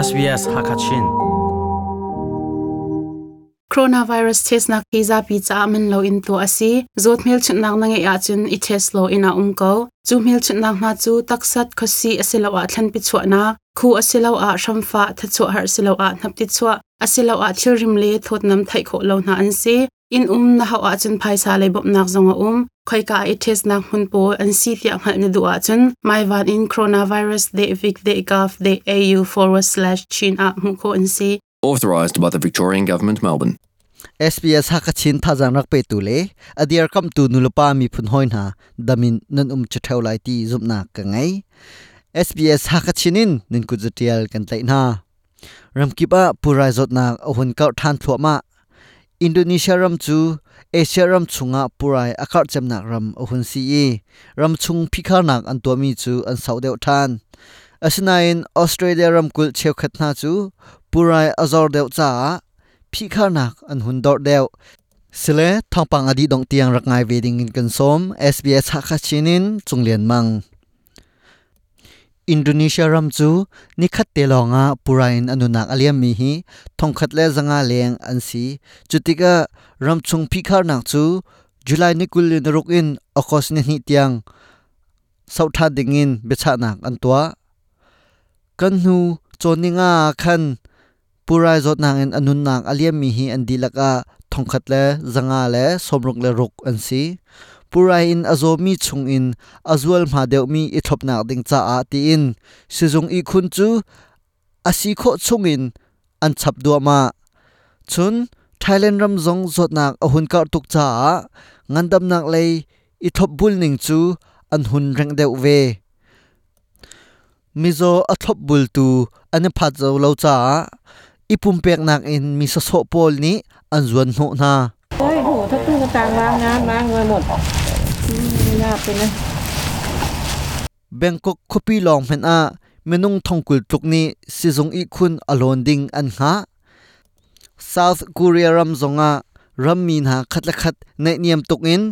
SBS Hakachin. Coronavirus test nak hi zapi caah man lo in tuah a si. Zawt hmelchunhnak na ngeih ahcun i test law inn ah um ko. Cu hmelchunhnak hna cu taksat, khuasih asiloah thlanpi chuahnak, khu asiloah hramfah, thachuah har asiloah hnapti chuah, asiloah thilrim le thawtnam theih khawh lo hna an si. Inn um na hauh ahcun phaisa lei bawmhnak zong a um. Khoika i testnak hmun pawl an si tiah hngalh na duh ahcun maivan in coronavirus.vic.gov.au/chin ah hmuh khawh an si. Authorised by the Victorian Government, Melbourne. SBS Hakachin thazang rak petu le a dirkamtu nulepa miphun hawi hna damin nan um ṭheo lai ti zumhnak ka ngei. SBS Hakachin in nan kut zatial kan tlaih hna. Ramkip ah pulrai zawtnak a hun karh ṭhan thluahmah. Indonesia ram cu Asia ram chungah pulrai a karh cemnak ram a hun si i ramchung phikharnak an tuahmi cu an sauh deuh ṭhan. Asinain Australia ramkulh cheukhat hna cu pulrai a zor deuh caah phihkharnak an hun dorh deuh. Sile thawngpang a dih dongh tiang rak ngai ve ding in kan sawm. SBS Hakha Chin in Cung Lian Mang. Indonesia ram cu nikhat te lawngah pura in a nunak a liammi hi 1,100 leng an si. Cutikah ramchung phihkharnak cu July ni 26 in August ni 2 tiang sauh ṭhan dingin biachahnak an tuah. Kan hnu cawn ninga ah khan Purai zawtnak in a nunnak a liammi hi an dihlak ah 1,166 an si. Purai in a zawmi chungin a zualhma deuhmi i thlopnak ding caah tiin sizung ihkhun cu a si khawh chungin an chap duahmah. Cun Thailand ram zong zawtnak a hun karh tuk caah ngandamnak lei i thlopbul ning cu an hun rengh deuh ve. Mizaw a thlopbultu an i phat zau lo caah i pumpeknak in mi sawsawh pawl nih an zuan hnawh hna. Bangkok khuapi lawng hmanh ah minung thongkul tluk nih sizung ihkhun a lawn ding an hngah. South Korea ram zongah rammi hna khat le khat naihniam tuk in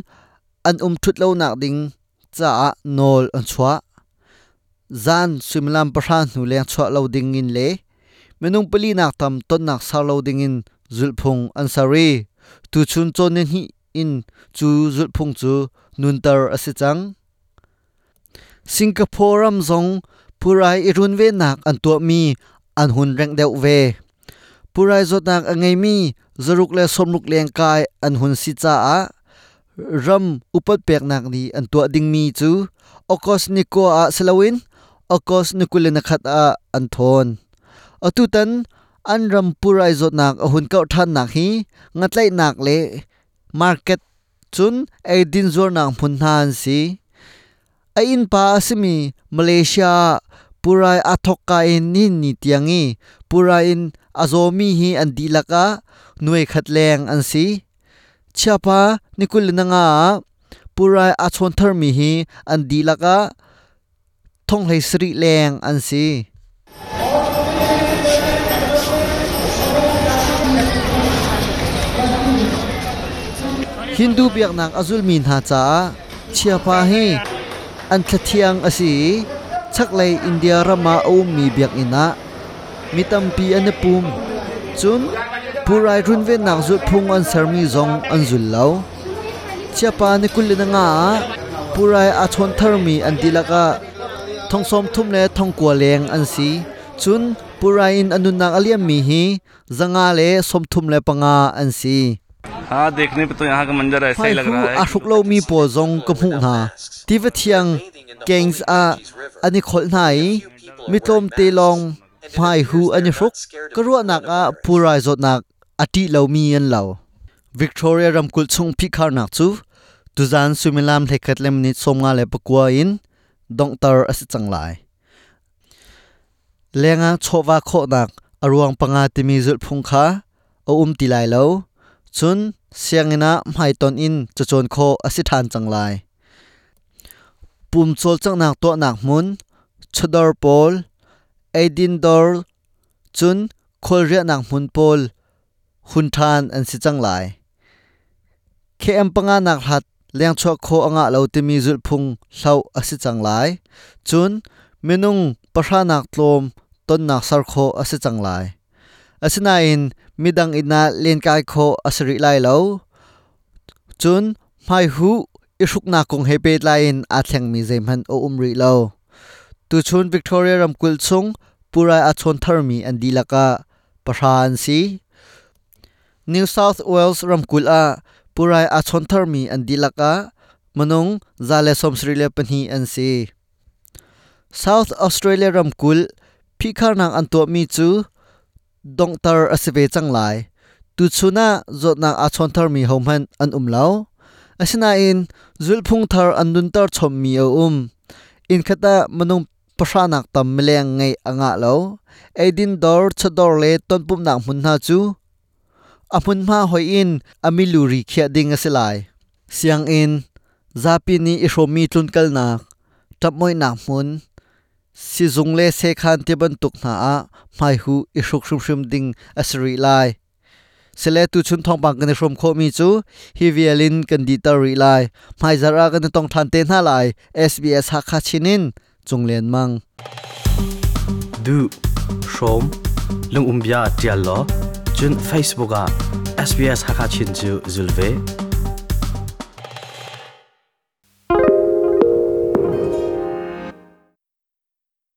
an um ṭhut lonak ding caah nawl an chuah. Zan suimilam 10 hnu leng chuah lo ding in le minung pali nak tam tonnak ser lo ding in zulhphung an ser i tuchun cawn nihnih in cu zulhphung cu nunter a si cang. Singapore ram zong phurai i runvennak an tuahmi an hun rengh deuh ve. Pulrai zawtnak a ngeimi 160 lengkai an hun si caah ram upat peknak nih an tuah dingmi cu August ni 9 ah si loin August ni 21 ah an thawn. Atutan an ram pulrai zawtnak a hun kauh ṭhannak hi ngatlaihnak le market cun eidin zuarnak hmun hna an si. A innpa a simi Malaysia ah pulrai aa thawkka in nihin ni tiang i pulrai in a zawmi hi an dihlak ah nuai khat leng an si. Chiapa ni 25 ah pulrai aa chawn tharmi hi an dihlak ah 37,000 leng an si. Hindu biaknak a zulmi hna caah chiapa hi an thlathiang a si i chaklei India ram ah a ummi biakinn ah mi tampi an i pum. Cun pulrai runvennak zulhphung an sermi zong an zul lo. Chiapa ni 25 ah pulrai aa chawn tharmi an dihlak ah 33,900 leng an si. Cun pulrai in a nunnak a liammi hi 135 an si. Hmaihu aa hruk lomi pawl zong ka hmuh hna. Tiva thiang Ganges ah an i kholh hna i mi tlawmte lawng hmaihu an i hruk. Ka ruahnak ah pulrai zawtnak a ṭih lomi an lo. Victoria ramkulh chung phihkharnak cu tuzan suimilam 11:59 in donghter a si cang lai. Lengah chawhva khawhnak a ruang panga timi zulhphung kha a um ti lai lo. Cun sianginn ah hmaitonh in cacawn khawh a si ṭhan cang lai. Pum cawlcanghnak tuahnak hmun, chawdawr pawl, eidin dawr, cun khualriahnak hmun pawl hun ṭhan an si cang lai. KM panga nak hlat lengchuah khawh a ngah lo timi zulhphung hloh a si cang lai. Cun minung pahra nak tlawm tonnak ser khawh a si cang lai. Asinain midang inn ah lenkai khawh a si rih lai lo. Cun hmaihuh i hruknak kong he pehtlai in aa thlengmi zeihmanh a um rih lo. Tuchun Victoria ramkulh chung pulrai aa chawn tharmi an dihlak ah pahra an si. New South Wales ramkulh ah pulrai aa chawn tharmi an dihlak ah minung 172 an si. South Australia ramkulh phihkharnak an tuahmi cu donghter a si ve cang lai. Tuchun ah zawtnak aa chawn tharmi hohmanh an um lo. Asinain zulhphung thar an nunter chommi a um. Inn khat ah minung pahranak tam mileng ngeih a ngah lo. Eidin dawr, chawdawr le tonpumhnak hmun hna cu a hmunhma hoih in a milu ri khiah ding a si lai. Sianginn, zapi nih i hrawmmi tlunkalnak, ṭapmoihnak hmun, sizung le sekhan ti bantuk hna ah hmaihuh i hruk hrimhrim ding a si rih lai. Sile tuchun thawngpang kan i hrawm khawhmi cu hi vial in kan dihter rih lai. Hmaizarh ah kan i tong ṭhan te hna lai. SBS Hakha Chin in Cung Lian Mang. Duh, hrawm, lungum bia ṭial law, cun Facebook ah SBS Hakha Chin cu zul ve.